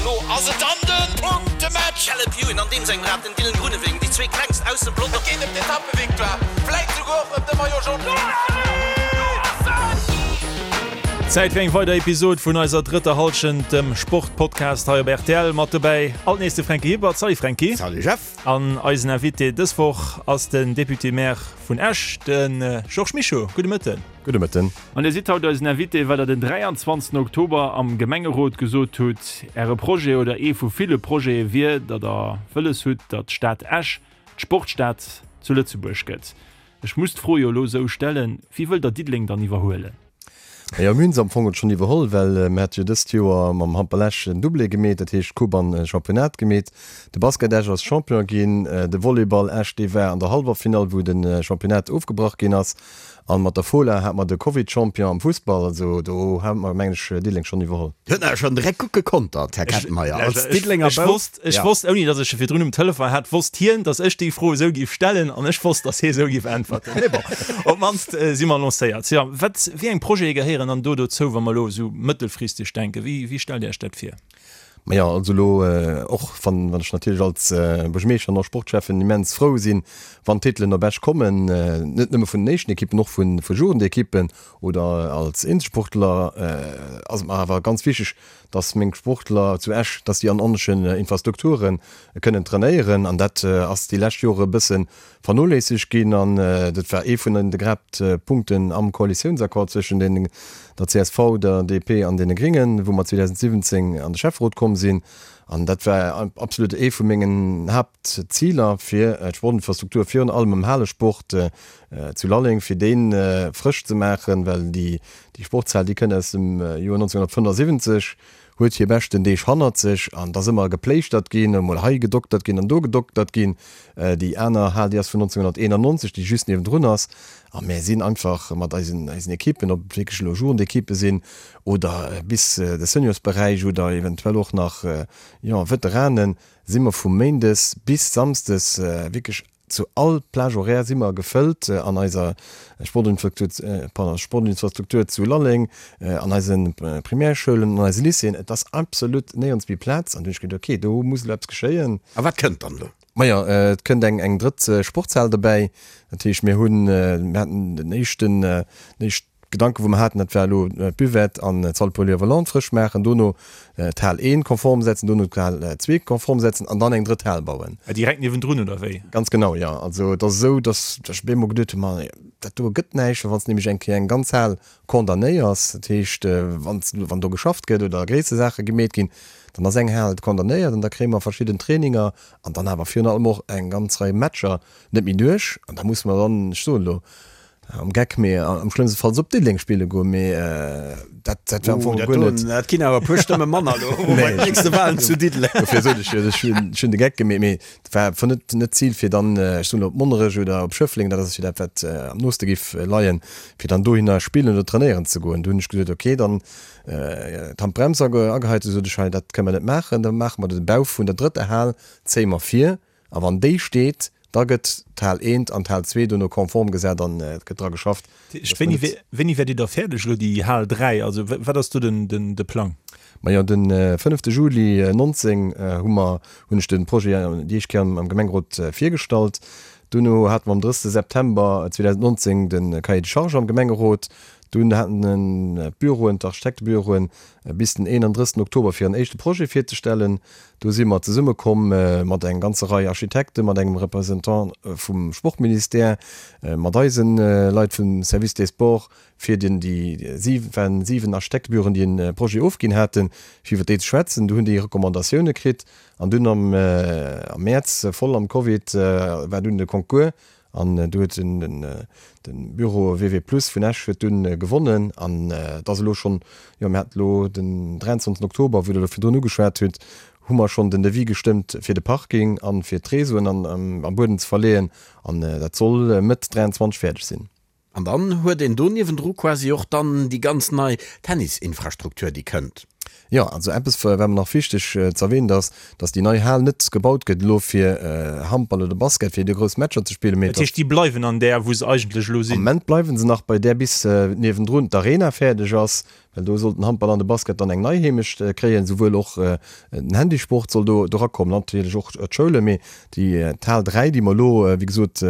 Lo ass et dann de Punktematch! Caleb Ewan an deem sengem Rad, den Dylan Groenewegen, déi zwee klengst aus dem Pelotong. Et geet ëm d'Etappevictoire, vläit souguer och ëm de Maillot Jaune. Zäit fir eng weider Episod vun eiser drëtter Hallschent, dem Sportpodcast hei op rtl. Mat dobäi alt nees de Franky Hippert. Salut Franky. Salut Jeff. An eisen Invité dës Woch ass den Député-Maire vun Esch, de Georges Mischo. Gudde Mëtten. Gudde Mëtten. An Dir sidd haut eisen Invité, well Der den 23 Oktober am Gemengerot gesot hutt, Äre Projet oder ee vu ville Projete wier, datt Der wëlles hutt, datt d'Stad Esch d'Sportstad zu Lëtzebuerg gëtt. Ech muss d'Fro jo elo esou stellen, Wie wëllt Der Diddeleng dann iwwerhuelen? Jo, mir hunn se am Fong schonn iwwerholl, well mir hate jo dëst Joer mam Handball Esch en Doublé gemeet, dat heescht Coupe an Championnat gemeet. De Basket Esch ass Champion ginn, de Volleyball Esch, dee war an der Hallwerfinall, wou de Championnat ofgebrach ginn ass. An mat der Fola hate mer de Covid-Champion am Fussball. Also do hate mer, mengen ech, Diddeleng schonn iwwerholl. Huet awer schonn direkt gutt gekontert, Här Kettenmeyer, als Diddelenger Ech wosst, ech wosst, ouni datt ech e virdrun um Telefon hat, wosst hien, datt ech déi Fro esou géif stellen an ech wosst, datt hie esou géif äntwerten. Mee bon, op d'mannst si mer lancéiert. Jo, wat, wéi eng Projete gehéieren dann do dozou, wa mer elo esou mëttelfristeg denken? Wéi, wéi stellt Dir Iech dat vir? Majo, also elo, och wann, wann ech natierlech als Buergermeeschter an och Sportschäffen immens frou sinn, wann d'Titelen op Esch kommen, net nëmme vun den éischten Ekippen, och vu Jugendekippen oder als Eenzelsportler, ass et mer awer ganz wichteg, dass meng Sportler zu Esch, dass déi an ordentlechen Infrastrukture kënnen trainéieren. An dat ass déi lescht Jore e bësse vernoléissegt ginn. An dat war ee vun de Haaptpunkten am Koalitiounsaccord zwëschen den, der csv, der DP an deene Gringen, wou mer 2017 an de Schäfferot komm sinn. An dat war absolut ee vu mengen Haaptziler, fir d'Sportinfrastruktur, virun allem am Halesport zu Lalleng, fir dee frësch ze maachen, well déi Déi Sportshal, déi kënnt aus dem Joer 1975, huet hir beschten Deeg hannert sech an et ass ëmmer gepléischtert ginn, emol hei gedoktert ginn an do gedoktert ginn. Déi aner Hal, déi ass vun 1991, déi just niewendrun ass. A mär sinn einfach mat eisen, eisen Ekippen, ob et wierklech elo Jugendekippe sinn oder bis de Seniorsberäich oder eventuell och nach, jo, Veteranen, si mer vu méindes bis samsdes wierklech Zu all Plage horaire si mer gefëllt an eiser Sportinfrastruktur zu Lalleng, an eise Primärschoulen, an eise Lycéeën. Et ass absolut néierens méi Plaz. An du hunn ech geduet, okay, do muss elo eppes geschéien. A wat kënnt dann elo? Majo, et kënnt eng drëtt Sportshal dobäi. Dat heescht, mir hunn, mir haten den éischten, den éischt Gedanken, wou mer haten, dat war elo d'Buvette an d'Salle polyvalente frësch maachen, dono d'Hal 1 konform setzen, dono d'Hal 2 konform setzen an dann eng drëtt Hal bauen. Direkt niewendrun, oder wéi? Ganz genau, jo. Also et ass esou, datt ech op eemol geduet hunn, ma dat do gëtt näischt, well wann s de nämlech eng Kéier eng ganz Hal condamnéiers, dat heescht, wann s, wann do geschafft gëtt oder gréisser Saache gemeet ginn, dann ass eng Hal condamnéiert an da kréie mer verschidden Traininger an dann awer virun allem och eng ganz Rei Matcher net méi duerch an da musse mer dann, ech soen elo, Am Geck, mee am schlëmmste Fall op Diddeleng spille goen, mee dat dat war am Fong guer net. Dat ginn awer e puer Stëmme manner elo bei den nächste Walen zu Diddeleng. Dofir sot ech jo, ech hunn ech hunn de Geck gemeet, mee et war einfach net net d'Zil fir dann, ech soen elo op Monnerech oder op Schëffleng, dat ass jo dat wat am nooste géif leien, fir dann dohinner spillen oder trainéieren ze goen. Du hunn ech gesot, okay, dann d'Handbrems ageheit, du sot ech, hei dat kënne mer net maachen, da maache mer de Bau vun der drëtter Hal, zéie mer vir a wann déi steet, Da gëtt d'Hal eent an d'Hal zwee dono konform gesat an et gëtt dra geschafft. Wéini wéini wäert Dir da fäerdeg elo déi Hal 3? Also wat ass do den den de Plang? Majo de fënnefte Juli 19 hu mer hunn ech de Projet déi éischt Kéier am Gemengerot virgestallt. Duerno hate mer am 30 September 2019 de Cahier de charges am Gemengerot. Dunn haten d'Büroen, d'Architektebüroen bis den 31 Oktober fir en éischte Projet virzestellen. Do si mer zesummekomm mat eng ganzer Rei Architekten, mat engem Représentant vum Sportministère, mat eise Leit vum Service des Sports, fir den déi waren 7 Architektebüroen, déi en Projet ofginn haten, fir iwwer déi ze schwätzen. Do hunn déi Recommandatioune kritt an dunn am Mäerz, voll am Covid, war dunn de Concours An do huet de Büro WW Plus vun Esch huet dunn gewonnen. An et ass elo schonn, jo mir haten elo den 23 Oktober, wou Der elo virdrun ugeschwat hutt, hu mer schonn den Devis gestëmmt fir de Parking an fir d'Réseauen am Buedem ze verleeën. An dat soll Mëtt 23 fäerdeg sinn. An dann huet een do niewendru quasi och dann déi ganz nei Tennisinfrastruktur, déi kënnt. Jo, also eppes wat mer nach wichteg ze erwähnen, dass, dass déi nei Hal net gebaut gëtt elo fir Handball oder Basket, fir do grouss Matcher ze spillen, mee Dat heescht, déi bleiwen an där, wou se eigentlech elo sinn? Am Moment bleiwe se nach bei där, bis niewendrun d'Arena fäerdeg ass, well do soll den Handball an de Basket dann eng nei Heemecht kréien, souwuel och den Handysport soll do erakommen, natierlech och d'Schoulen. Mee déi d'Hal 3, déi mer elo, wéi gesot,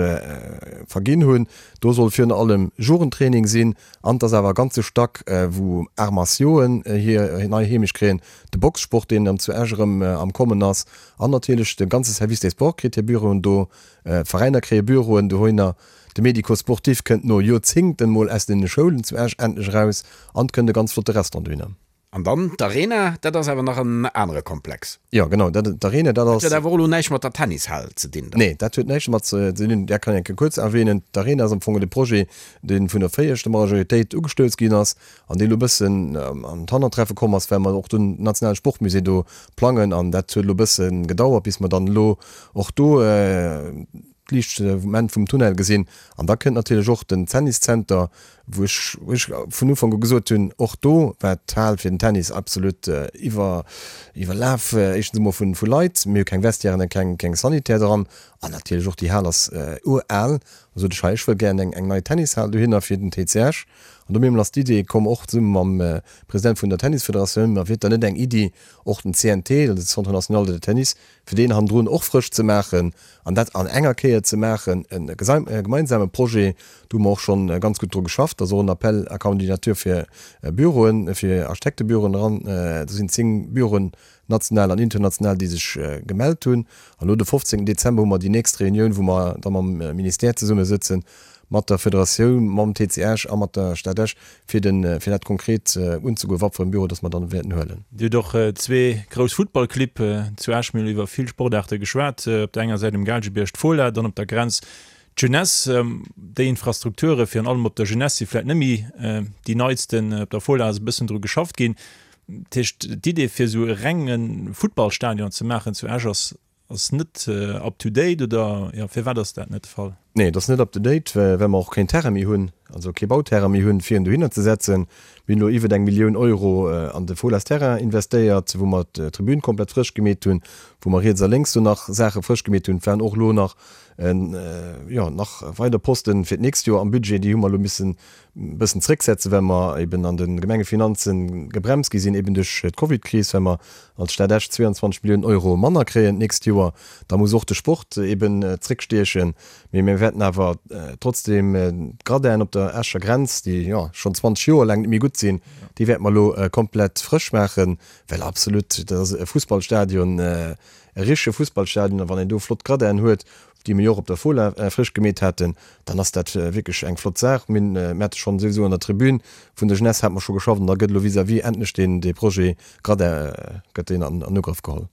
verginn hunn, do soll virun allem Jugendtraining sinn, An et ass awer e ganze Stack, wou Arts martiauxen hir nei Heemecht kréien, de Boxsport, deen dann zu Esch erëm am Kommen ass, an natierlech de ganze Service des Sports kritt hir Büroen do, d'Veräiner kréie Büroen dohinner, de Médico-sportif kënnt no Joerzéngten mol aus den Schoulen zu Esch endlech eraus an et kënnt e ganz flotte Restaurant dohinner. An dann d'Arena, dat ass awer nach en anere Komplex. Jo, genau, dat, d'Arena, dat ass. Dat huet awer och elo näischt mat der Tennishal ze dinn dann. Nee, dat huet näischt domat ze dinn. Dat kann ech eng Kéier kuerz erwähnen. D'Arena ass am Fong de Projet, dee vun der viregter Majoritéit ugestouss ginn ass an dee elo e bëssen an d'Hannertreffe komm ass, well mer och den nationale Sportmusée do plangen. An dat huet elo e bësse gedauert, bis mer dann elo och do d'Liicht um Enn vum Tunnel gesinn. An da kënnt natierlech och den Tenniszenter, wou ech wou ech vun Ufank u gesot hunn, och do war d'Hal fir den Tennis absolut iwwer iwwerlaf, éischtens emol vu vu Leit, mir hu keng Vestiairen an keng keng Sanitaire dran an natierlech och déi Hal ass ural. Da sot ech, hei ech wëll gären eng eng nei Tennishal dohinner fir den TC Esch. An do mir ass d'Idee komm, och zesumme mam President vun der Tennisfederatioun, ma wier et dann net eng Iddi och den CNT, also de Centre National de Tennis, fir deen hannendrun och frësch ze maachen an dat an enger Kéier ze maachen, e gemeinsame Projet, do hu mer och schonn ganz gutt dru geschafft, ass och en Appel à candidature fir Büroen, fir Architektebüroen eran, do sinn 10 Büroen, national an international, déi sech gemellt hunn. An elo de 15 Dezember hu mer déi nächst Reunioun, wou mer da mam Ministère zesummesëtzen, mat der Federatioun, mam TC Esch a mat der Stad Esch, fir den, fir dat konkret unzegoen, wat fir en Büro dass mer dann wäerten huelen. Dir hutt och zwee grouss Futtballclibb zu Esch. Mir hunn iwwer vill Sportaarte geschwat. Op der enger Säit um Gaalgebierg d'Fola, dann op der Grenz d'Jeunesse. Déi Infrastrukture virun allem op der Jeunesse si vläicht net méi déi neitsten. Op der Fola ass e bëssen dru geschafft ginn. Dat heescht, d'Idee fir esou e renge Futtballstadion ze maachen zu Esch ass Ass net up to date oder jo firwat ass dat net de Fall? Nee, et ass net up to date, well mer och keen Terrain méi hunn, also kee Bauterrain méi hunn, fir en dohinner ze setzen. Mir hunn elo iwwert eng Millioun Euro an de Folas Terrain investéiert, wou mer d'Tribün komplett frësch gemeet hunn, wou mer riets a lénks do nach Saache frësch gemeet hunn. Et waren och elo nach, jo, nach weider Posten fir d'nächst Joer am Budget, déi hu mer elo missen e bëssen zrécksetzen, well mer eben an de Gemengefinanze gebremst gi sinn, eben duerch d'Covidkris, well mer als Stad Esch 22 Milliounen Euro manner kréien d'nächst Joer. Da muss och de Sport eben zréckstiechen. Mee mir wäerten awer trotzdeem d'Gradinen op der Escher Grenz, déi jo schonn 20 Joer laang net méi gutt sinn, déi wäerte mer elo komplett frësch maachen, well absolut, dat ass e Fussballstadion, e richtege Fussballstadion. A wann een do flott Gradinen huet, déi mir jo och op der Fola frësch gemeet haten, dann ass dat wierklech eng flott Saach. Mir hunn, mir hate schonn souwisou an der Tribün vun der Jeunesse hate mer scho geschafft an da gëtt elo vis-à-vis endlech deen, dee Projet Gradin gëtt deen an Ugrëff geholl.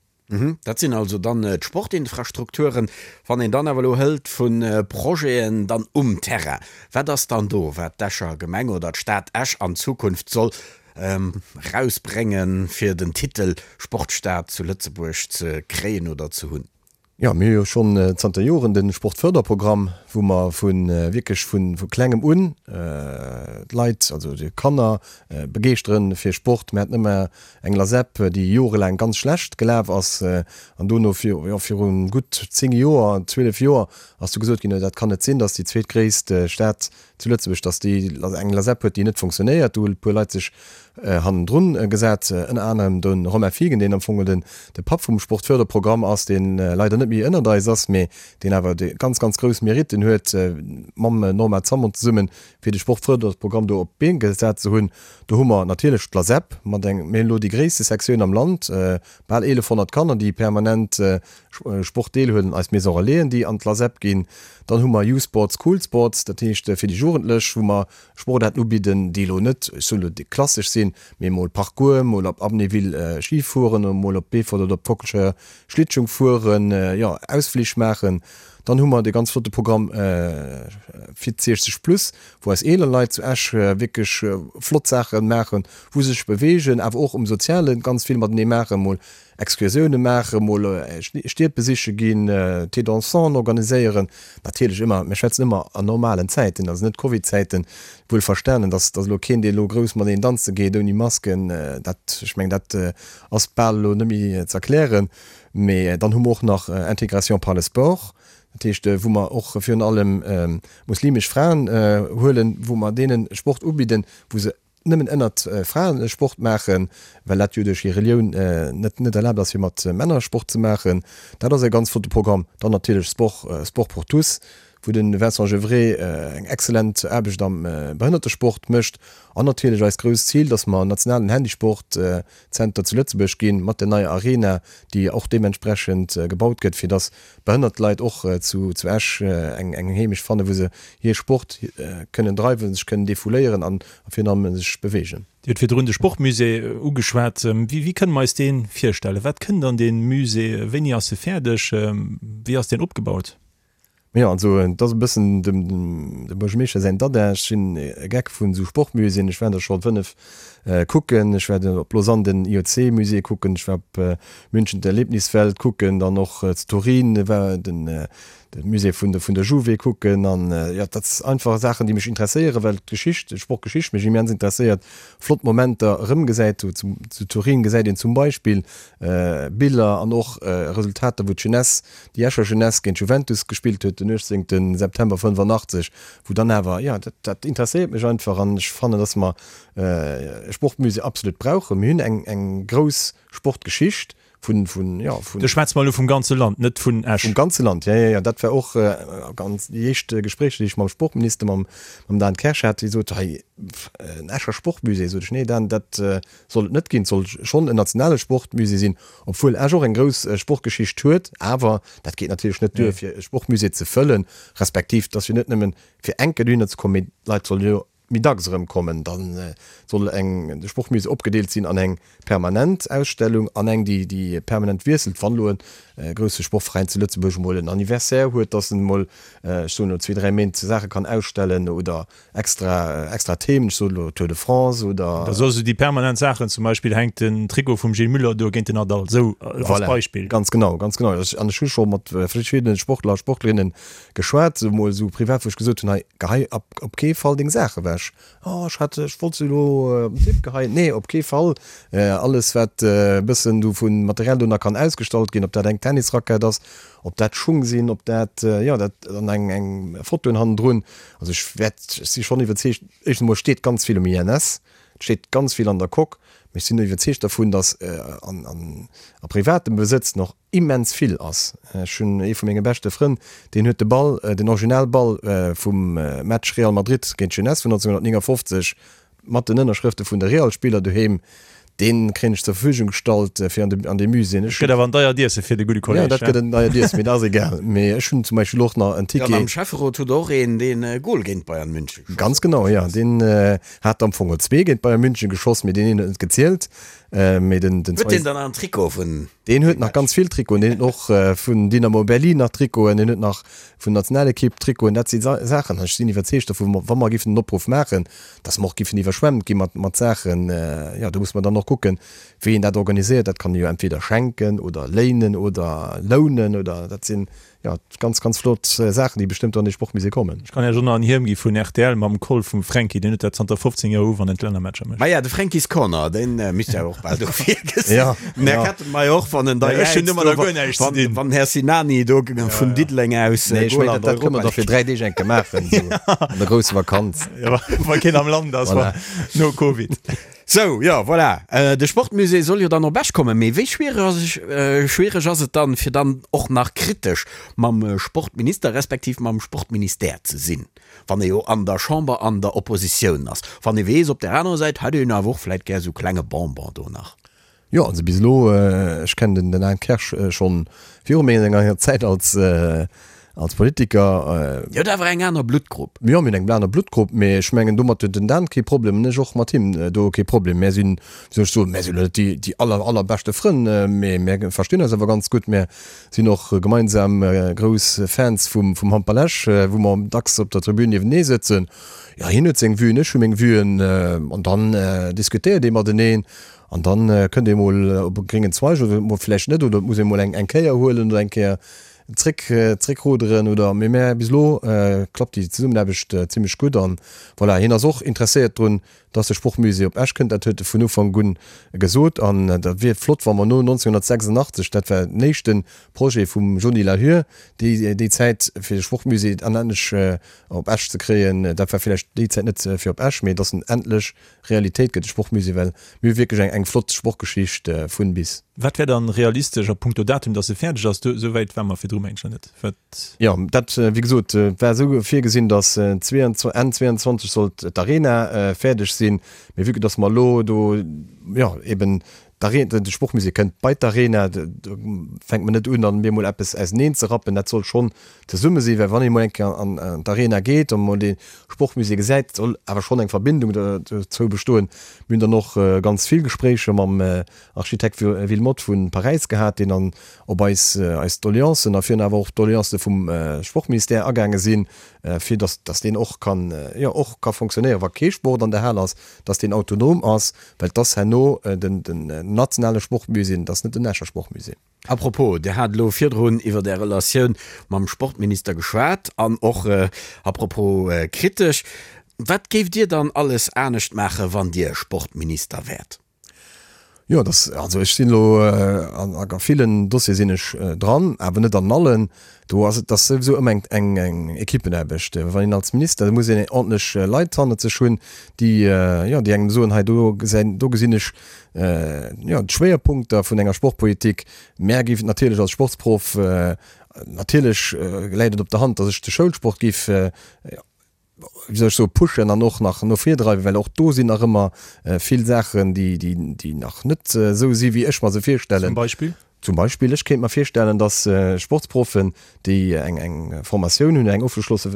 Dat sinn also dann d'Sportinfrastrukturen. Wann een dann awer elo hëlt vu Projeten dann um Terrain, wat ass dann do, wat d'Escher Gemeng oder d'Stad Esch an Zukunft soll erausbréngen, fir den Titel Sportstad zu Lëtzebuerg ze kréien oder ze hunn? Jo, mir hu jo schonn zanter Joren de Sportförderprogramm, wou mer vu wierklech vu Klengem un d'Leit, also déi Kanner begeeschteren fir Sport. Mir haten ëmmer eng Lasep, déi jorelaang ganz schlecht gelaf ass an dono jo viru gutt 10 Joer, 12 Joer ass du gesot ginn, dat kann net sinn, datt déi zweetgréisst Stad zu Lëtzebuerg, dass déi eng Lasep huet, déi net funktionéiert. Do hunn e puer Leit sech hannendrun gesat, ënner anerem de Romain Fiegen, deen am Fong den de Papp vum Sportförderprogramm ass, dee leider net méi ënnert eis ass, mee deen awer déi ganz, ganz grouss Meritten huet, mam Norma Zammon zesummen, fir de Sportförderprogramm do op d'Been gesat ze hunn. Do hu mer natierlech d'Lasep mat eng, mir hunn elo déi gréisste Sektioun am Land, bal 1.100 Kanner, déi permanent Sport deelhuelen, eis Maison Relaisen, déi an d'Lasep ginn. Dann hu mer Youthsports, Coolsports, dat heescht fir déi Jugendlech, wou mer Sportaarten ubidden, déi elo net, ech soen elo, déi klassesch sinn, mee mol Parcours, mol op Amnéville Ski fueren, mol op Beefort oder op d'Kockelscheier Schlittschung fueren, jo, Ausflich maachen. Dann hu mer dee ganz flotte Programm Fit 60 plus, wou eis eeler Leit zu Esch wierklech flott Saache maachen, wou se sech beweegen, awer och um Soziale ganz vill matenee maachen, mol Excursioune maachen, mol Stied besiche ginn, Thé dansant organiséieren. Natierlech ëmmer, mir schwätzen ëmmer an normalen Zäiten, also net Covid-Zäiten, wuel verstanen, dass dass elo keen, dee elo grouss mateneen danze geet ouni Masken, dat, ech mengen, dat ass bal elo net méi ze erklären. Mee dann hu mer och nach Intégration par le sport, dat heescht, wou mer och virun allem muslimesch Fraen huelen, wou mer deene Sport ubidden, wou se nëmmen ënnert Fraen Sport maachen, well dat jo duerch hir Relioun net net erlaabt ass, fir mat Männer Sport ze maachen. Dat ass e ganz flotte Programm. Dann natierlech Sport, Sport pour tous, wou de Vincent Gevrey eng exzellent Aarbecht am Behënnertesport mécht. An natierlech eist grousst Zil, dass mer nationalen Handisport-Zenter zu Lëtzebuerg ginn, mat der neier Arena, déi och deementsprechend gebaut gëtt, fir dass behënnert Leit och zu Esch eng Heemecht fannen, wou se hir Sport kënnen dreiwen, sech kënnen defouléieren an virun allem sech beweegen. Dir hutt virdrun de Sportmusée ugeschwat. Wéi kënne mer eis dee virstellen? Wat kënnt an dee Musée? Wéini ass e fäerdeg? Wéi ass deen opgebaut? Jo, also et ass e bëssen dem Buergermeeschter säin Dada. Ech sinn e Geck vun esou Sportmuséeën. Ech war der scho 5 kucken. Ech war op Lausanne den IOC-Musée kucken, ech war op München d'Erlebniswelt kucken, dann och zu Turin war den Musée vun der Juve kucken. An jo, dat ass einfach Saachen, déi mech interesséieren, well d'Geschicht, d'Sportgeschicht mech immens interesséiert. Flott Momenter erëmgesäit. Zu Turin gesäit een zum Beispill Biller an och Resultater, wou d'Jeunesse, déi Escher Jeunesse géint d'Juventus gespillt huet den 18 September 85, wou dann awer, jo, dat, dat interesséiert mech einfach an ech fannen, dass mer e Sportmusée absolut brauchen. Mir hunn eng, eng grouss Sportgeschicht vun, vun, jo, vun. Do schwätze mer elo vum ganze Land, net vun Esch. Vum ganze Land, jo, jo, jo. Dat war och ganz déi éischt Gespréicher, déi ech mam Sportminister, mam, mam Dan Kersch hat, dee sot, hei, en Escher Sportmusée. Sot ech, nee Dan, dat soll et net ginn. Et soll schonn en nationale Sportmusée sinn, obwuel Esch och eng grouss Sportgeschicht huet. Awer dat geet natierlech net duer, fir e Sportmusée ze fëllen, respektiv et ass jo net nëmmen fir eng Kéier dohinner ze kommen, mee d'Leit solle jo méi dacks erëmkommen. Da soll eng, de Sportmusée opgedeelt sinn an eng permanent Ausstellung an eng, déi, déi permanent wiesselt. Wann elo e grousse Sportveräin zu Lëtzebuerg emol en Anniversaire huet, dass en emol, ech soen elo, zwee, dräi Méint Saache kann ausstellen oder Extra, extra Themen, ech soen elo Tour de France oder. Da soss esou déi permanent Saachen, zum Beispill hänkt den Trikot vum Gilles Muller do géint den Nadal, esou als Voilà, Beispill. ganz genau, ganz genau. Ech, an ech hu scho mat verschiddene Sportler a Sportlerinnen geschwat, esou mol esou privat, wou ech gesot hunn, hei, gehei op, op kee Fall deng Saach ewech. Oh, ech hat, ech wollt se elo op den Tipp geheien. Nee, op kee Fall. Alles wat e bëssen do vu Material do nach kann ausgestallt ginn, ob dat eng Tennisrackett ass, ob dat Schung sinn, ob dat, jo, dat, an eng, eng Fotoen hannendrun. Also ech wäert, ech si schonn iwwerzeegt, éischtens emol steet ganz vill um INS, et steet ganz vill an der Coque, mee ech sinn iwwerzeegt dervun, datt an a privatem Besëtz nach immens vill ass. Ech hunn ee vu menge beschte Frënn, deen huet de Ball, den Originalball vum Match Real Madrid géint Jeunesse vun 1959 Mat den Ënnerschrëfte vun de Real-Spiller doheem, dee kréien ech zur Verfügung gestallt fir an de, an dee Musée. Ech Gëtt awer en deiert Iesse fir de gudde Kolleg, Jo, dat gëtt en deiert Iesse, mee dat ass egal. Mee ech hunn zum Beispill och nach en Ticket. Jo, an am Schäfferot hutt Der och een, deen e Gol géint Bayern München geschoss Ganz huet. genau, jo. Deen hat am Fong och zwee géint Bayern München geschoss, mee deen een huet net gezielt. Mee den, den Huet deen dann nach en Trikot vun Deen huet nach ganz vill Trikoten. Deen huet och vun Dynamo Berlin nach Trikoten, deen huet nach vun Nationalekipp Trikoten. Dat si Saachen, ech sinn iwwerzeegt dovun, wa mer géifen den Opruff maachen, dass mer och géifen iwwerschwemmt gi mat, mat Saachen. Jo, do muss mer dann och kucken, wéi een dat organiséiert. Dat kann ee jo entweder schenken oder léinen oder lounen oder dat sinn, jo, ganz, ganz flott Saachen, déi bestëmmt an dee Sportmusée kommen. Ech kann Iech och nach en Hiem gi vun rtl mam Col vum Fränki, deen huet dat zanter 15 Joer u, wann en d'Lännermatcher mécht. Maja, de Fränki's Corner, dee misst jo och bal dofir gesinn. Ja, Den Här ja. Kettenmeyer och, wann en da Ech hunn domadder guer näischt ze wann, dinn. wann den Här Sinani do vun Diddeleng aus Nee, ech Goal mengen, an dat, dat kënne mer da fir 3 Deeg eng Kéier maachen, esou an der grousser Vakanz. Ja, wa keen am Land ass, Voilà. no Covid. Sou, jo, voilà. De Sportmusée soll jo dann op Esch kommen. Mee wéi schwiereg ass et dann, fir dann och nach kritesch mam Sportminister respektiv mam Sportministère ze sinn, wann ee jo an der Chamber an der Oppositioun ass, wann ee weess, op där anerer Säit hätt een awer och vläit gär sou klenge Bonbon do nach? Jo, also bis elo, ech kennen den Dan Kersch schonn viru menger Zäit als. Als Politiker. Dir hutt awer eng aner Bluttgrupp. Jo, mir hunn eng aner Bluttgrupp, mee ech mengen, domat huet den Dan kee Problem an ech och mat him do kee Problem. Mär sinn, wéi soll ech soen, mär sinn elo net déi, déi aller, allerbeschte Frënn, mee mär verstinn eis awer ganz gutt. Mär sinn och gemeinsam grouss Fans vum, vum Handball Esch, wou mer dacks op der Tribün niewenee sëtzen. Jo, hien huet seng Vuen, ech hu meng Vuen an dann diskutéiert ee mateneen an dann kënnt ee mol op e gréngen Zweig oder mol vläicht net oder et muss ee mol eng, eng Kéier huelen oder eng Kéier Zréck, zréckruderen oder, mee mä bis elo klappt déi Zesummenaarbecht zimlech gutt an voilà, hien ass och interesséiert drun, dass de Sportmusée op Esch kënnt, dat huet e vun Ufank un gesot an dat wier flott, wa mer no 1986, dat war den éischte Projet vum Johny Lahur déi déi Zäit, fir de Sportmusée an endlech op Esch ze kréien, dat war villäicht déi Zäit net fir op Esch, mee dass en endlech Realitéit gëtt, de Sportmusée, well mir hu wierklech eng eng flott Sportgeschicht vun bis. Wat wär dann realistesch a punkto Datum, dass e fäerdeg ass? Do, esou wäit ware mer virdru mengen ech nach net. Wat? Jo, dat, wéi gesot, war esou virgesinn, dass Enn 22 sollt d'Arena fäerdeg sinn. Mee vue que dass mer elo do, jo, eben d'Arena, de Sportmusée kënnt bei d'Arena, do fänkt mer net un, dann bemol eppes auseneen ze rappen. Dat soll schonn zesumme sinn, well wann ee mol eng Kéier an d'Arena geet an mol dee Sportmusée gesäit, soll awer schonn eng Verbindung dozou bestoen. Mir hunn dann och ganz vill Gespréicher mam Architekt Wilmotte vu Paräis gehat, deen dann op eis eis Doleancen a virun awer och d'Doleancë vum Sportministère agaange sinn, fir datt datt deen och kann, jo, och ka fonctionnéieren, wa kee Sport an der Hal ass, datt deen autonom ass, well et ass herno den den nationale Sportmusée, et ass net den Escher Sportmusée. À propos, Dir hat elo virdrun iwwer Är Relatioun mam Sportminister geschwat an och à propos kritesch. Wat géift Dir dann alles anescht maachen, wann Dir Sportminister wäert? Jo, dass, also ech sinn elo an a villen Dossiere sinn ech dran, awer net an allen. Do ass et ass souwisou ëmmer eng eng eng Equippenaarbecht. Wann een als Minister, da muss een ordentlech Leit hannert sech hunn, déi, jo, déi engem soen, hei do gesäin, do gesinn ech, jo, d'Schwéierpunkter vun enger Sportpolitik. Mär géifen natierlech als Sportsproff, natierlech läit et op der Hand, dass ech de Schoulsport géif, wéi soll ech soen, pushen an och nach no vir dreiwen, well och do sinn nach ëmmer vill Saachen, déi, déi, déi nach net esou si wéi ech mer se virstellen. Zum Beispill? Zum Beispill, ech kéint mer virstellen, dass Sportsproffen, déi eng, eng Formatioun hunn, eng ofgeschlosse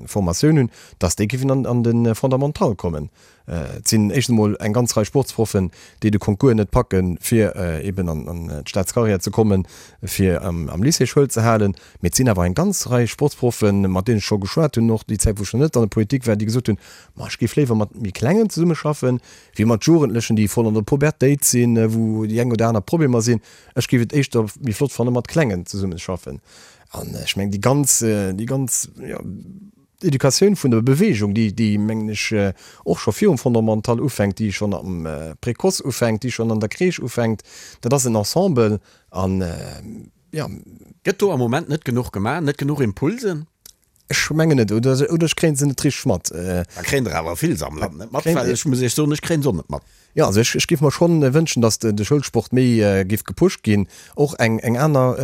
Formatioun hunn, dass déi géifen an, an de Fondamental kommen. Et sinn éischtens emol eng ganz Rei Sportsproffen, déi de Concours net packen, fir eben an d'Staatscarrière ze kommen, fir am Lycée Schoul ze halen. Mee et sinn awer eng ganz Rei Sportsproffen, mat deenen ech scho geschwat hunn, och déi Zäit, wou ech nach net an der Politik war, déi gesot hunn, Ma ech géif léiwer mat méi Klengen zesummeschaffen, wéi mat Jugendlechen, déi voll an der Pubertéit sinn, wou déi eng oder aner Problemer sinn. Ech géif et éischter méi flott fannen, mat Klengen zesummeschaffen. An ech mengen, déi ganz, déi ganz, jo, D'Educatioun vun der Bewegung, déi, déi, mengen ech, och scho virum Fondamental ufänkt, déi schonn am Précoce ufänkt, déi schonn an der Crèche ufänkt, dat ass en Ensemble an, jo. Gëtt do am Moment net genuch gemaach, net genuch Impulsen? Ech mengen net, oder, oder ech kréien se net richteg mat. Da kréien der awer vill se am Land net mat, well ech muss Iech soen, ech kréien se och net mat. Jo, also ech, ech géif mer schonn wënschen, datt de Schoulsport méi géif gepusht ginn, och eng, eng aner,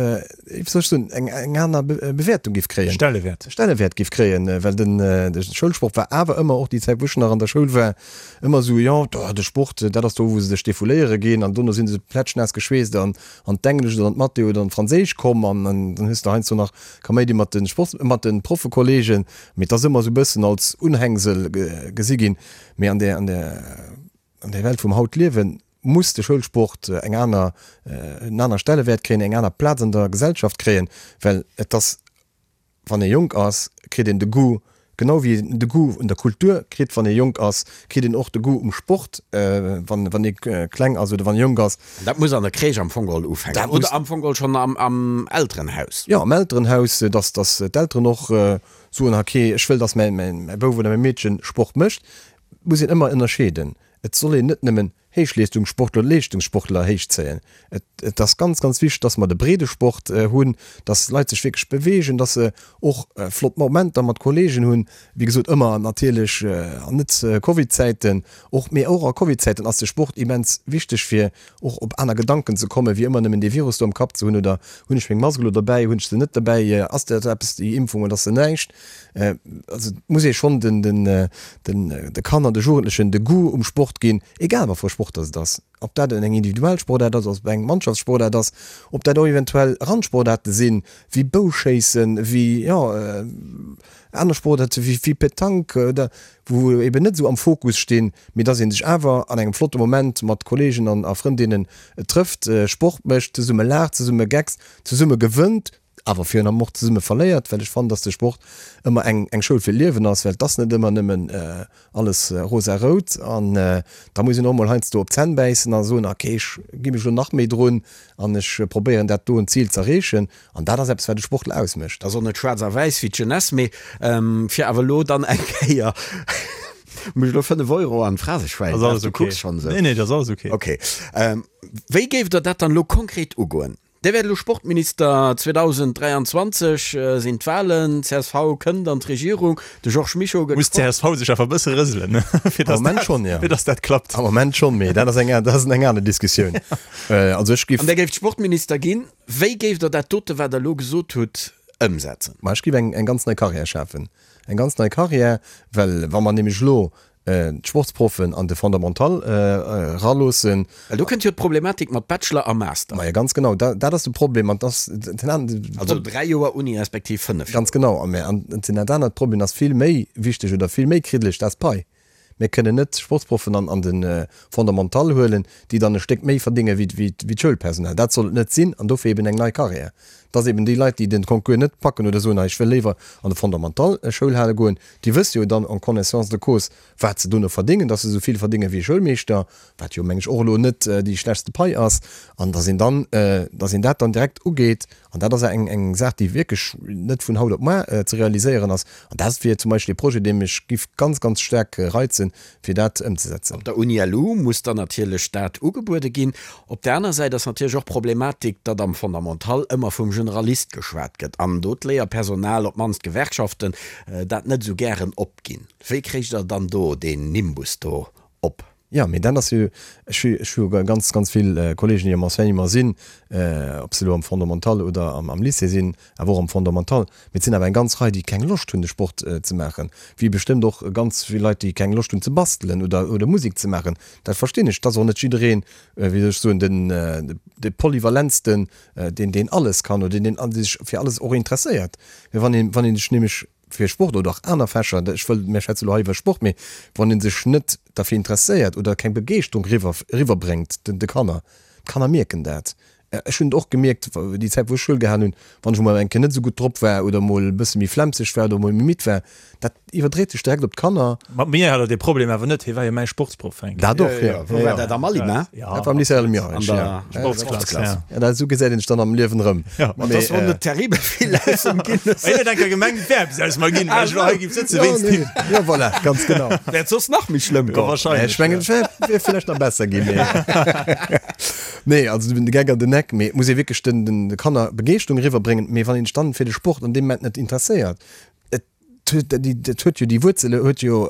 wéi soll ech soen, eng, eng aner Bewäertung géif kréien. Stellewäert. Stellewäert géif kréien, well den, de Schoulsport war awer ëmmer, och déi Zäit wou ech nach an der Schoul war, ëmmer esou, jo, de Sport, dat ass do wou se sech defouléiere ginn an dono si se plätschnaass geschweesst an an d'Englesch oder an d'Mathé oder an d'Franséisch komm an dann hues de heiansdo nach Kaméidi mat de Sports, mat de Proffekollegen, mee et ass ëmmer esou e bëssen als Unhängsel gesi ginn. Mee an der, an der, an der Welt vum haut liewen, muss de Schoulsport eng aner, en aner Stellewäert kréien, eng aner Plaz an der Gesellschaft kréien, well et ass, wann ee jonk ass, kritt een de Goût, genau wéi een de Goût un der Kultur kritt, wann ee jonk ass, kritt een och de Goût um Sport, wann, wann ee kleng ass oder wann ee jonk ass. An dat muss an der Crèche am Fong geholl ufänken oder am Fong geholl schonn am, am Elterenhaus. Jo, am Elterenhaus, dass, dass d'Elteren och Soen, okay, ech wëll, dass mäi Bouf oder mäi Meedchen Sport mécht, muss een ëmmer ënnerscheeden. Et soll een net nëmmen Héichleestungssportler oder Leeschtungssportler héichzéien. Et ass ganz, ganz wichteg, dass mer de Breedesport hunn, dass d'Leit sech wierklech beweegen, dass se och flott Momenter mat Kolleegen hunn. Wéi gesot, ëmmer natierlech an net Covid-Zäiten och, mee och a Covid-Zäiten ass de Sport immens wichteg, fir och op aner Gedanken ze kommen, wéi ëmmer nëmmen dee Virus do am Kapp ze hunn, oder hunn ech meng Mask elo derbäi, hunn ech se net derbäi, ass dat eppes déi Impfung oder ass se näischt. Also et muss ee schonn den, den, den, de Kanner, de Jugendlechen de Goût um Sport ginn, egal wat fir e Sport. Sport dass et ass. Ob dat eng individuell Sportaart ass, ob eng Mannschaftssportaart ass, ob dat och eventuell Randsportaarte sinn, wéi Bouschéissen, wéi, jo, aner Sportaarte wéi, wéi Petanque oder wou eben net esou am Fokus stinn, mee dass ee sech awer an engem flotte Moment mat Kolleegen an a Frëndinnen trëfft, Sport mécht, zesumme laacht, zesumme geckst, zesumme gewënnt, awer virun allem och zesumme verléiert, well ech fannen, dass de Sport ëmmer eng eng Schoul fir d'Liewen ass, well et ass net ëmmer nëmmen alles rosa-rout an da muss een och mol heiansdo op d'Zänn bäissen a soen, ok, ech gi mech elo nach méi drun an ech probéieren dat doen Zil z'erreechen an dat ass eppes wat e Sportler ausmécht. Ass och net schwaarz a wäiss wéi d'Jeunesse, mee fir awer elo dann eng Kéier mech elo 5 Euro an d'Phraseschwäin, Ass alles du ok. kucks schonn esou. Nee, nee, dat ass alles ok. Ok. Wéi géift Der dat dann elo konkret ugoen? Dir wäert elo Sportminister, 2023 sinn d'Wahlen, csv kënnt an d'Regierung, de Georges Mischo gëtt Muss d'CSV sech awer e bësse rëselen, fir Am Moment schonn, jo. fir datt dat klappt. Am Moment schonn, mee dat ass eng, dat ass eng aner Diskussioun. Also ech giff. An Dir géift Sportminister ginn. Wéi géift Der dat dote, wat Der elo gesot hutt, ëmsetzen? Ma ech giff eng, eng ganz nei Carrière schafen. Eng ganz nei Carrière, well wa mer nämlech elo d'Sportsproffen an de Fondamental eraloossen. Well do kënnt jo d'Problematik mat Bachelor a Master. Majo, ganz genau, dat ass de Problem. An dass den an. Also 3 Joer Uni respektiv 5 Joer. Ganz genau. A mä an den anert Problem ass vill méi wichteg oder vill méi kriddeleg, dat ass d'Pai. Mir kënnen net Sportsproffen an de Fondamental huelen, déi dann e Stéck méi verdénge wéi d'Schoulpersonal. Dat soll et net sinn an dofir eben eng nei Carrière. Dass eben déi Leit, déi den Concours net packen oder soen, ech wëll léiwer an de Fondamental Schoulhale goen, déi wësse jo dann en connaissance de cause, wat se dono verdéngen, dass se esou vill verdénge wéi e Schoulmeeschter, wat jo, meng ech, och elo net déi schlechtste Pai ass, an dass een dann, dass een dat dann direkt ugeet. An dat ass eng, eng Saach, déi wierklech net vun haut op muar ze realiséieren ass. An dat wier zum Beispill ee Projet, dee mech giff ganz, ganz staark reizen, fir dat ëmzesetzen. Op der Uni LU muss dann natierlech dat ugebuede ginn. Op där aner Säit ass natierlech och d'Problematik, datt am Fondamental ëmmer vum Generalist geschwat gëtt an do d'Léierpersonal, op d'mannst d'Gewerkschaften, dat net esou gären opginn. Wéi kréicht Der dann do deen Nimbus do op? Jo, mee dat ass jo, ech hu, ech hu ganz, ganz vill Kollegen, déi am Enseignement sinn, ob se elo am Fondamental oder am Lycée sinn, awer och am Fondamental, mee et sinn awer eng ganz Rei, déi keng Loscht hunn, de Sport ze maachen, wéi bestëmmt och ganz vill Leit, déi keng Loscht hunn ze bastelen oder, oder Musek ze maachen. Dat verstinn ech. Et ass och net jiddereen, wéi soll ech soen, den, de polyvalentsten, deen, deen alles kann oder deen, deen sech fir alles och interesséiert. Mee wann een, wann een sech nämlech fir Sport oder och aner Fächer, ech wëll, mir schwätze elo hei iwwer Sport, mee wann ee sech net derfir interesséiert oder keng Begeeschterung riwwer, riwwerbréngt den, de Kanner, d'Kanner mierken dat. Ech hunn et och gemierkt, déi Zäit wou ech Schoul gehalen hunn, wann ech emol eng Kéier net esou gutt drop war oder emol e bësse méi flemmseg war oder emol méi midd war, dat iwwerdréit sech direkt op d'Kanner. Mat mir hat der dee Problem awer net, hie war jo mäi Sportsproff, Fränk. Dat och, jo. Wou war dat, am Alima? Dat war am Lycée Almierech, jo. An der Sportsklass, jo. Ja, dat, esou gesäit een sech dann am Liewen erëm. Jo. Ma dass wor net terribel vill aus em ginn. Hien huet eng Kéier gemengt, et wär eppes aus mer ginn, well ech elo hei géif sëtzen wéinst him. Jo, voilà, ganz genau. Wäert soss nach méi schlëmm goen. Wahrscheinlech. Ech mengen, et wär vläicht nach besser ginn, mee. Nee, also de Geck an den Eck, mee et muss ee wierklech den, den, de Kanner Begeeschterung eriwwerbréngen. Mee wann een sech dann fir de Sport an deem Moment net interesséiert, et huet, dat huet jo déi Wuerzele huet jo,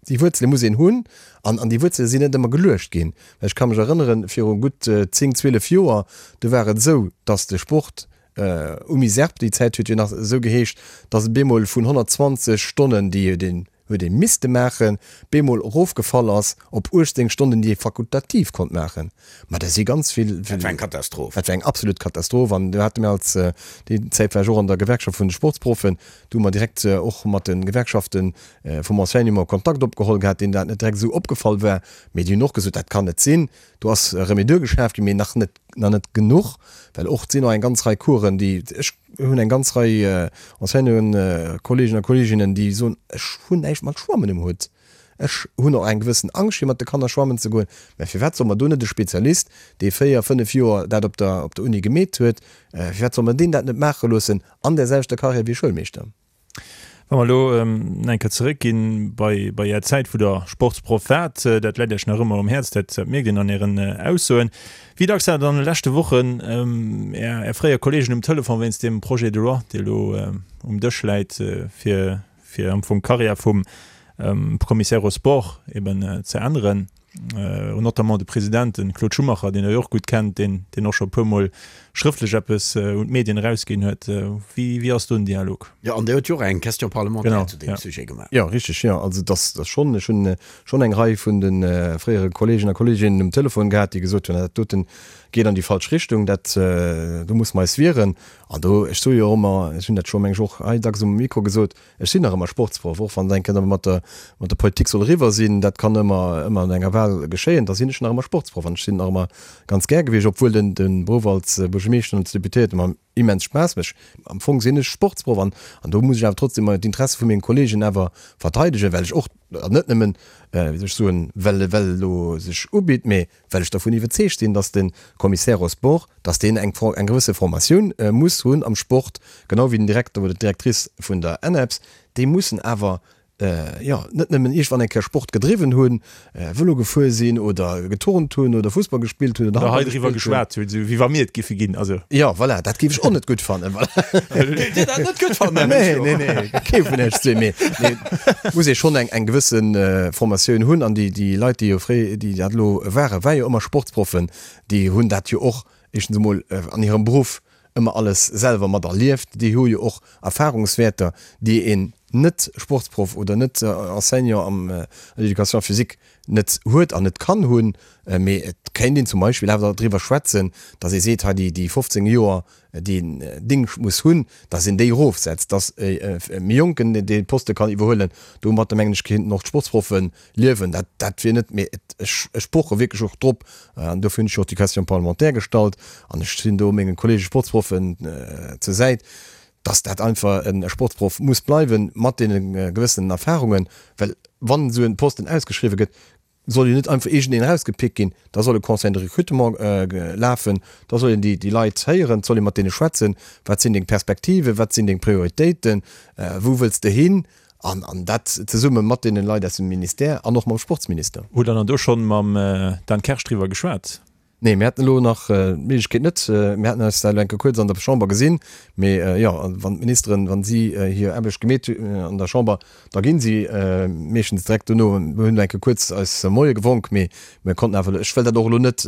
déi Wuerzele muss een hunn an, an déi Wuerzele sinn net ëmmer geluecht ginn. Well ech ka mech erënneren, viru gutt 10, 12 Joer, do war et esou, datt de Sport UMISERP, déi Zäit huet jo nach esou geheescht, datt et bemol vun 120 Stonnen, déi den huet ee misste maachen, bemol erofgefall ass op 18 Stonnen, déi ee fakultativ konnt maachen. Ma da si ganz vill. Dat war eng Katastroph. Dat war eng absolut Katastroph. An do hate mir als, déi Zäit war ech och an der Gewerkschaft vun de Sportsproffen, do hu mer direkt och mat de Gewerkschafte vum Enseignement Kontakt opgeholl gehat, deenen dat net direkt esou opgefall war. Mee déi hunn och gesot, dat kann net sinn. Do ass Remedur geschaaft ginn, mee nach net, nach net genuch, well och et sinn och eng ganz Rei Coursen, déi, ech hunn eng ganz Rei Enseignanten, Kolleegen a Kolleeginnen, déi soen, ech hunn näischt mat Schwammen um Hutt, ech hunn och eng gewëssen Angscht fir mat de Kanner schwammen ze goen. Mä firwat soll mer do net e Spezialist, dee 4, 5 Joer dat op der, op der Uni gemeet huet, firwat soll mer deen dat net maache loossen an där selwechter Carrière wéi e Schoulmeeschter? Wa mer elo eng Kéier zeréckginn bei bei Är Zäit, wou Der Sportsproff waart, dat läit Iech nach ëmmer um Häerz, dat mierkt een an Ären Aussoen. Wéi dacks hat Der an de leschte Wochen Är Är fréier Kolleegen um Telefon wéinst deem Projet de loi, dee elo um Dësch läit, fir fir am Fong d'Karriär vum Commissaire aux sports eben ze änneren? Notamment de President, de Claude Schumacher, deen Der jo och gutt kennt, deen, deen och scho e puermol schrëftlech eppes un d'Medien erausginn huet. Wéi, wéi ass do den Dialog? Jo, an Dir huet jo och eng Question parlementaire zu deem Sujet gemaach. Jo, richteg, jo. Also et ass schonn, ech hunn schonn eng Rei vun de fréiere Kolleegen a Kolleeginnen um Telefon gehat, déi gesot hunn, dat doten geet an déi falsch Richtung, dat, do musse mer eis wieren. An do, ech soe jo och ëmmer, ech hunn dat scho meng ech och hei dacks um Mikro gesot, Ech sinn nach ëmmer Sportsproff, och wann et eng Kéier mat der, mat der Politik soll eriwwer sinn, dat kann ëmmer, ëmmer an enger Wahl geschéien, da sinn ech nach ëmmer Sportsproff an ech sinn nach ëmmer ganz gär gewiescht, obwuel den, de Beruff als Buergermeeschter an als Deputéierte mer immens Spaass mécht. Am Fong sinn ech Sportsproff an, an do muss ech awer trotzdem d'Interesse vu mengen Kollegen awer verteidegen, well ech och, an net nëmmen, wéi soll ech soen, well, well elo sech ubitt, mee well ech dervun iwwerzeegt sinn, dass de Commissaire aux sports, dass deen eng eng gewësse Formatioun muss hunn am Sport, genau wéi den Direkter oder d'Directrice vun der ENEPS, déi mussen awer, jo, net nëmmen iergendwann eng Kéier Sport gedriwwen hunn, Vëlo gefuer sinn oder geturnt hunn oder Fussball gespillt hunn oder Handball gespillt hunn. Oder hei driwwer geschwat hunn, esou wéi wa mir et giffe ginn, also. Jo, voilà, dat géif ech och net gutt fannen, voilà. Géift Dir dat net gutt fannen, Här Mischo? Nee, nee, nee, kee vun Iech zwee, mee, mee muss ee schonn eng eng gewësse Formatioun hunn an déi déi Leit, déi jo fréi, déi dat elo waren, war jo ëmmer Sportsproffen, déi hunn dat jo och éischtens emol an hirem Beruff ëmmer alles selwer mat erlieft, déi hu jo och Erfahrungswäerter, déi een net-Sportsproff oder net-Enseignant am an der Éducation physique net huet an net kann hunn. Mee et kéint een zum Beispill awer driwwer schwätzen, datt ee seet, hei déi 15 Joer, déi een Dingscht muss hunn, datt een déi erofsetzt, datt e méi Jonken dee Poste kann iwwerhuelen. Domatter, mengen ech, kéinten och d'Sportsproffe liewen. Dat, dat wier net, mee et, ech, ech poche wierklech och drop, an dofir hunn ech jo och déi Question parlementaire gestallt, an ech sinn do menge Kollege Sportsproffen zur Säit, datt dat einfach e Sportsproff muss bleiwen, mat deene gewëssenen Erfahrungen, well wann esou e Posten ausgeschriwwen gëtt, soll jo net einfach iergendeen erausgepickt ginn, da soll e Conseil de recrutement lafen, da soll een déi Leit héieren, et soll ee mat deene schwätzen, wat sinn deng Perspektiven, wat sinn deng Prioritéiten, wou wëlls de hin, an an dat zesumme mat deene Leit aus dem Ministère an och mam Sportsminister. Hutt Der dann do schonn mam Dan Kersch driwwer geschwat? Nee, mir haten elo nach d'Méiglechkeet net. Mir haten eis da elo eng Kéier kuerz an der Chamber gesinn. Mee jo, wann d'Ministeren, wa si hir Aarbecht gemeet hunn an der Chamber, da gi si meeschtens direkt dono. Mir hunn elo eng Kéier kuerz eis Moie gewonk, mee mir konnten awer, ech wëll dat och elo net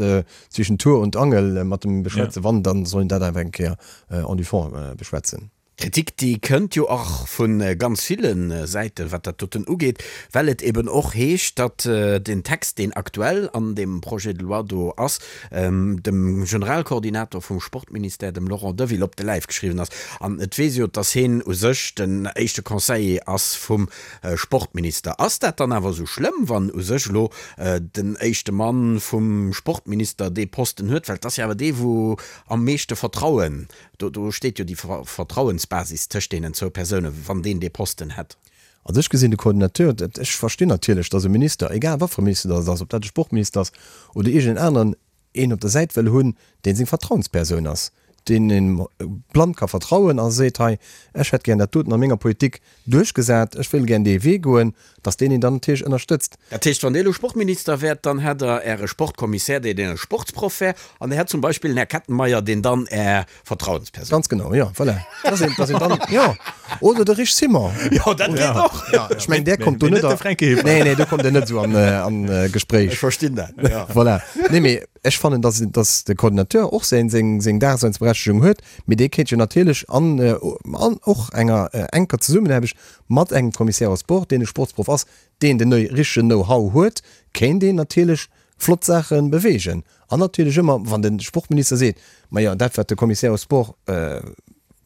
zwischen Tour und Angel mat em beschwätzen. Wann, da soll een dat awer eng Kéier en du fond beschwätzen. Kritik, déi kënnt jo och vu ganz ville Säiten, wat dat doten ugeet, well et eben och heescht, datt den Text, deen aktuell an deem Projet de loi do ass, dem Generalkoordinator vum Sportministère, dem Laurent Deville, op de Läif geschriwwen ass. An et weess jo, datt hien u sech den éischte Conseiller ass vum Sportminister. Ass dat dann awer esou schlëmm, wann u sech elo den éischte Mann vum Sportminister dee Posten huet? Well et ass jo awer dee wou am meeschte Vertrauen Do, do steet jo déi Vertrauensbasis tëscht deenen zwou Persounen, wann deen dee Posten hätt. Also ech gesinn de Coordinateur, dat, ech verstinn natierlech, datt e Minister, egal wat fir e Minister datt et ass, ob dat e Sportminister ass oder iergendeen aneren, een op der Säit wëll hunn, dee seng Vertrauenspersoun ass, deen een blann ka vertrauen a seet, hei, ech hätt gär dat doten a menger Politik duerchgesat, ech wëll gär dee Wee goen, datt deen een dann natierlech ënnerstëtzt. Dat heescht, wann Dir elo Sportminister wäert, dann hätt Der Äre Sportkommissär, deen e Sportsproff wär, an Dir hätt zum Beispill den Här Kettenmeyer, deen dann Är Vertrauenspersoun. Ganz genau, jo, voilà. Dass een, dass een dann, jo, oder de Rich Simon. Jo, dat geet och. Jo, ech mengen, där kommt do net a. Nee, nee, do kommt Der net esou an, an Gespréich. Ech verstinn dat, jo. Voilà. Nee, mee ech fannen, dass, dass de Coordinateur och säin, seng, seng Daseinsberechtegung huet, mee dee kéint jo natierlech an, an och enger enker Zesummenaarbecht Mat engem Commissaire aux sports, deen e Sportsproff ass, deen den richtegen Know-how huet, kéint een natierlech flott Saache beweegen. An natierlech ëmmer, wann de Sportminister seet, Majo, dat wat de Commissaire aux sports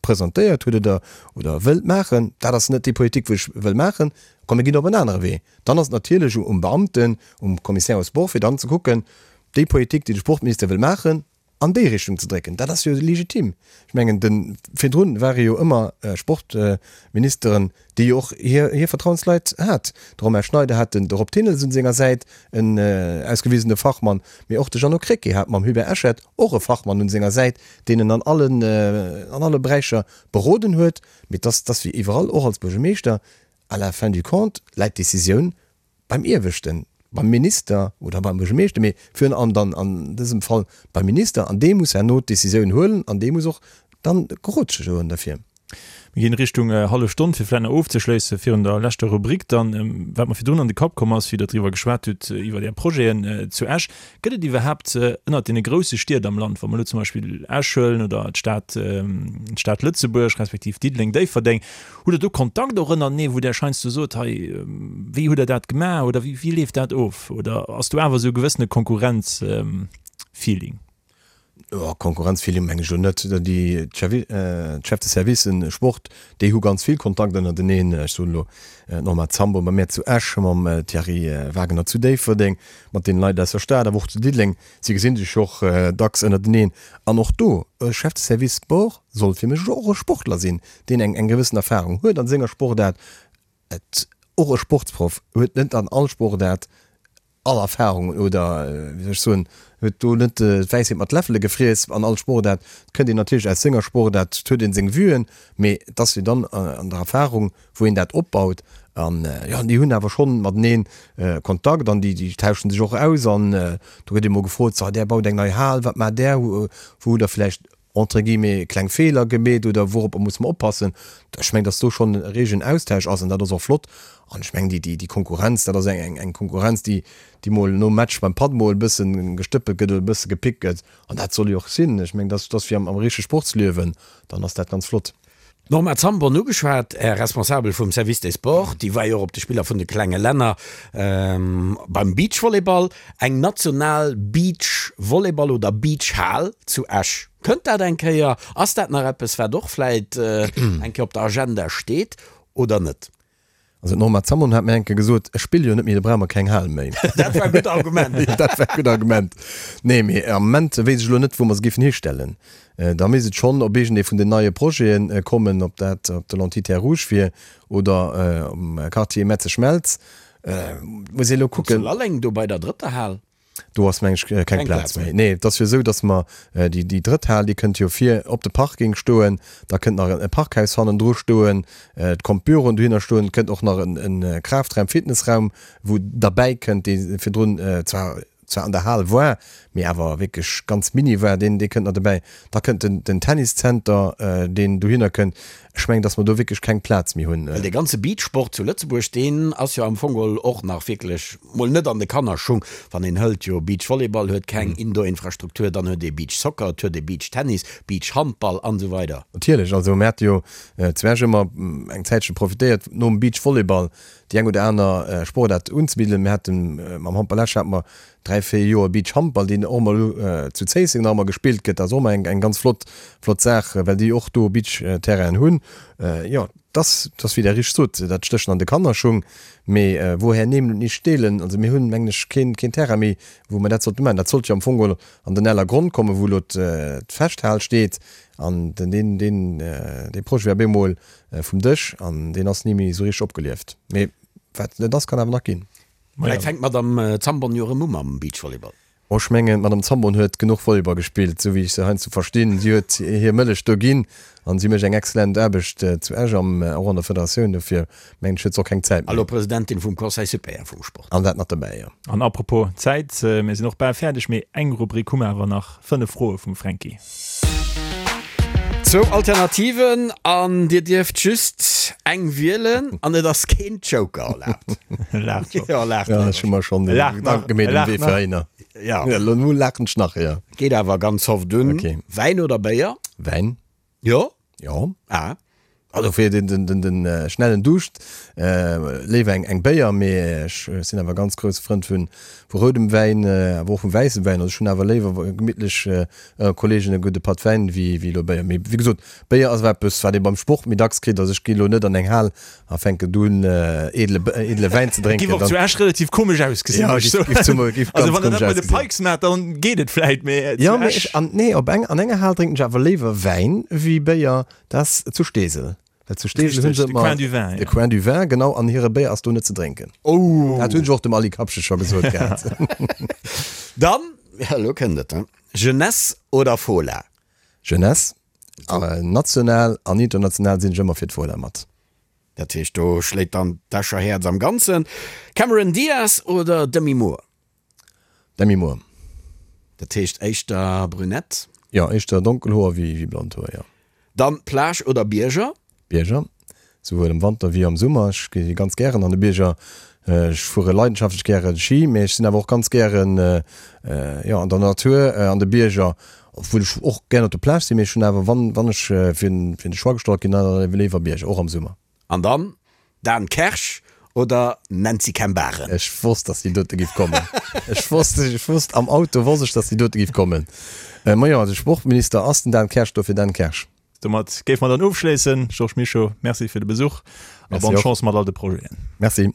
presentéiert huet oder oder wëllt maachen, dat ass net déi Politik wou ech wëll maachen, komm mir ginn op en anere Wee. Dann ass et natierlech um Beamten, um Commissaire aux sports, fir dann ze kucken, déi Politik déi de Sportminister wëll maachen, an déi Richtung ze drécken, dat ass jo legitim. Ech mengen, de virdrun ware jo ëmmer Sportministeren, déi jo och hir hir Vertrauensleit hat. De Romain Schneider hat den de Rob Thillens un senger Säit, en ausgewisene Fachmann, mee och de Jeannot Krecké hat mam Hubert Eschert och e Fachmann un senger Säit, deen en an allen an alle Beräicher beroden huet. Mee dass dass wéi iwwerall, och als Buergermeeschter, à la fin du compte läit d'Decisioun beim Ieweschten, beim Minister oder beim Buergermeeschter, mee virun allem dann an dësem Fall beim Minister, an dee muss herno d'Decisioun huelen an dee muss och dann gerotschege goen derfir. Mir ginn Richtung hallef Stonn, fir vläicht nach ofzeschléissen virun der leschter Rubrik dann, wat mer virdrun an de Kapp komm ass, wéi Der driwwer geschwat hutt, iwwer Är Projeten zu Esch. Gëtt et iwwerhaapt ënnert deene grousse Stied am Land, wa mer elo zum Beispill Esch huelen oder d'Stad, d'Stad Lëtzebuerg respektiv Diddeleng, Déifferdeng, hutt Der do Kontakt och ënnertenee, wou Der heiansdo sot, hei, wéi hutt Der dat gemaach oder wéi, wéi leeft dat of? Oder ass do awer esou e gewëssene Konkurrenz-Feeling? Jo, Konkurrenzfeeling meng ech elo net. Déi Chefs de Servicen Sport, déi hu ganz vill Kontakt ënnerteneen. Ech soen elo d'Norma Zambon bei mär zu Esch, mam Thierry Wagener zu Déifferdeng, mat deene Leit aus der Stad, awer och zu Diddeleng. Si gesi sech och dacks ënnerteneen. An och do, e Chef de Service Sport soll fir mech och e Sportler sinn, deen eng eng gewëssen Erfahrung huet a senger Sportaart. Et och e Sportsproff huet net an all Sportaart all Erfahrungen oder, wéi soll ech soen, huet do net d'Wäisheet mat Läffele gefriess an all Sportaart. Et kënnt een natierlech aus senger Sportaart, et huet een seng Vuen, mee et ass jo dann an der Erfahrung, wou een dat opbaut. An jo, déi hunn awer schonn matenee Kontakt an déi tauschen sech och aus an do gëtt ee mol gefrot, So, där baut eng nei Hal, wat maacht där? Wou hutt der vläicht entre guillemets, kleng Feeler gemeet oder wouropper muss mer oppassen. Ech mengen, datt do schonn e reegen Austausch ass an dat ass och flott. An ech mengen, déi, déi Konkurrenz, dat ass eng, eng Konkurrenz, déi, déi mol nom Match beim Patt mol e bësse gestëppelt gëtt oder e bësse gepickt gëtt. An dat soll jo och sinn. Ech mengen, dat ass wéi am, am richtege Sportsliewen, dann ass dat ganz flott. D'Norma Zambon ugeschwat, Är Responsabel vum Service des Sports, déi war jo och op de Spiller vun de klenge Länner beim Beachvolleyball. Eng national Beachvolleyball oder Beachhal zu Esch, kënnt dat eng Kéier? Ass dat nach eppes, wat och vläit eng Kéier op der Agenda steet oder net? Also d'Norma Zambon hat mir eng Kéier gesot, ech spille jo net méi, da brauche mer keng Hal méi. Dat war e gutt Argument. Dat war e gutt Argument. Nee, mee am Moment weess ech elo net, wou mer se géifen histellen. Da misst et schonn op iergendee vun den neie Projete kommen, ob dat op der Lentille Terre Rouge wier oder um Quartier Metze-Schmelz. Muss ee elo kucken. Zu Lalleng do bei der drëtter Hal. Do ass, meng ech, keng Plaz méi. Nee, et ass jo esou, datt mer déi, déi drëtt Hal, déi kënnt jo vir op de Parking stoen. Da kënnt nach e Parkhaus hannendru stoen. Et kommt Büroen dohinner stoen. Et kënnt och nach e Kraftraum, Fitnessraum, wou derbäi kënnt, dee virdrun zwar, zwar an der Hal war, mee awer wierklech ganz mini war. Deen, dee kënnt nach dobäi. Da kënnt den, den Tenniszenter, deen dohinner kënnt. Ech mengen, datt mer do wierklech keng Plaz méi hunn. Well dee ganze Beachsport zu Lëtzebuerg, deen ass jo am Fong geholl och nach wierklech mol net an de Kannerschung. Wann een hëlt, jo Beachvolleyball huet keng Indoor-Infrastruktur, dann huet ee Beachsoccer, et huet ee Beachtennis, Beachhandball an esou weider. Natierlech, also mir hate jo zu Esch ëmmer eng Zäitche profitéiert nom Beachvolleyball déi eng oder aner Sportaart unzebidden. Mir hate mam Handball Esch hate mer 3, 4 Joer Beachhandball, deen och ëmmer elo zu Zéisseng nach ëmmer gespillt gëtt. Dat ass och ëmmer eng ganz flott, flott Saach, well déi och do Beachterrainen hunn. Jo, dass, dass wéi Der richteg sot, dat stécht an de Kannerschung. Mee woher nehmen und nicht stehlen? Also mir hunn, mengen ech, keen, keen Terrain méi, wou mer dat sollte maachen. Dat sollt jo am Fong geholl an den Ellergronn kommen, wou elo d'Festhal steet. An den, deen, deen, dee Projet war op eemol vum Dësch an deen ass ni méi esou richteg opgelieft. Mee wat net ass, kann awer nach ginn. Vläicht fänkt d'Madame Zambon jo erëm u mam Beachvolleyball. Oh, ech mengen, d'Madame Zambon huet genuch Volleyball gespillt, esou wéi ech se heiansdo verstinn. Si huet hir Mëllech do ginn an si mécht eng exzellent Aarbecht zu Esch am, och an der Federatioun. Dofir mengen ech, huet se och keng Zäit méi. Elo Presidentin vum Conseil supérieur vum Sport. An dat nach dobäi, jo. An apropos Zäit, mir sinn och bal fäerdeg, mee eng Rubrik hu mer awer nach, 5 Froe vum Fränki. Zwou Alternativen an dir dierft just eng wielen an et ass keen Joker erlaabt. Laacht scho. Jo, laacht Ja, ech hu mer schonn Laacht nach. Gedanke gemeet um Wee fir heihinner. Ja. Ja, lo nu laachen ech nach, jo. Geet awer ganz soft un. Okay. Wäin oder Béier? Wäin. Jo? Jo. Ah. Also fir den, den, den, den schnellen Duuscht léiwer eng, eng Béier, mee ech sinn awer ganz grousse Frënd vun, vu roudem Wäin, awer och vum wäisse Wäin. Also ech hunn awer léiwer gemittlech ënner Kollegen e gudde Patt Wäin wéi, wéi elo Béier. Mee wéi gesot, Béier ass awer eppes, wat ee beim Sport méi dacks kritt. Also ech gi elo net an eng Hal a fänken do un edle, edle Wäin ze drénken. Giff och zu Esch relativ komesch ausgesinn, Ja, muss ech giff, giff zum, giff Also ganz wann der komesch dat bei de ausgesinn. Pikes maacht, dann geet et vläit, mee zu Jo, mee Esch. ech, an, nee, op eng, an enger Hal drénken ech awer léiwer Wäin wéi Béier. Dat ass zu Steesel. Well zu Steesel hunn se Richtig, de ëmmer. Coin du Vin, De ja. Coin du Vin, genau. An hire Béier ass do net ze drénken. Oh! Dat hunn ech och dem Aly Kapsche scho gesot gehat. Dann, ja, elo kënnt et, Jeunesse oder Fola? Jeunesse. National an international sinn ech ëmmer fir d'Fola mat. Dat heescht, do schléit dann d'Escher Häerz am Ganzen. Cameron Diaz oder Demi Moore? Demi Moore. Dat heescht éischter brünett? Jo, éischter donkel Hoer wéi blond Hoer, jo. Dann Plage oder Bierger? Bierger, souwuel am Wanter wéi am Summer. Ech gi ganz gären an de Bierger. Ech fuere leidenschaftlech gäre Ski, mee ech sinn awer och ganz gären, jo, an der Natur, an de Bierger, obwuel ech och gären op der Plage sinn, mee ech hunn awer, wann, wann ech fir de Choix gestallt ginn, dann léiwer Bierger, och am Summer. An dann Dan Kersch oder Nancy Kembare? Ech wosst, dass déi dote giff kommen. Ech wosst, ech wosst, am Auto wosst ech, dass déi dote giff kommen. Majo, de Sportminister ass den Dan Kersch, dofir Dan Kersch. Domat géife mer dann ofschléissen. Georges Mischo, Merci fir de Besuch a bonne Chance mat all de Projeten. Merci.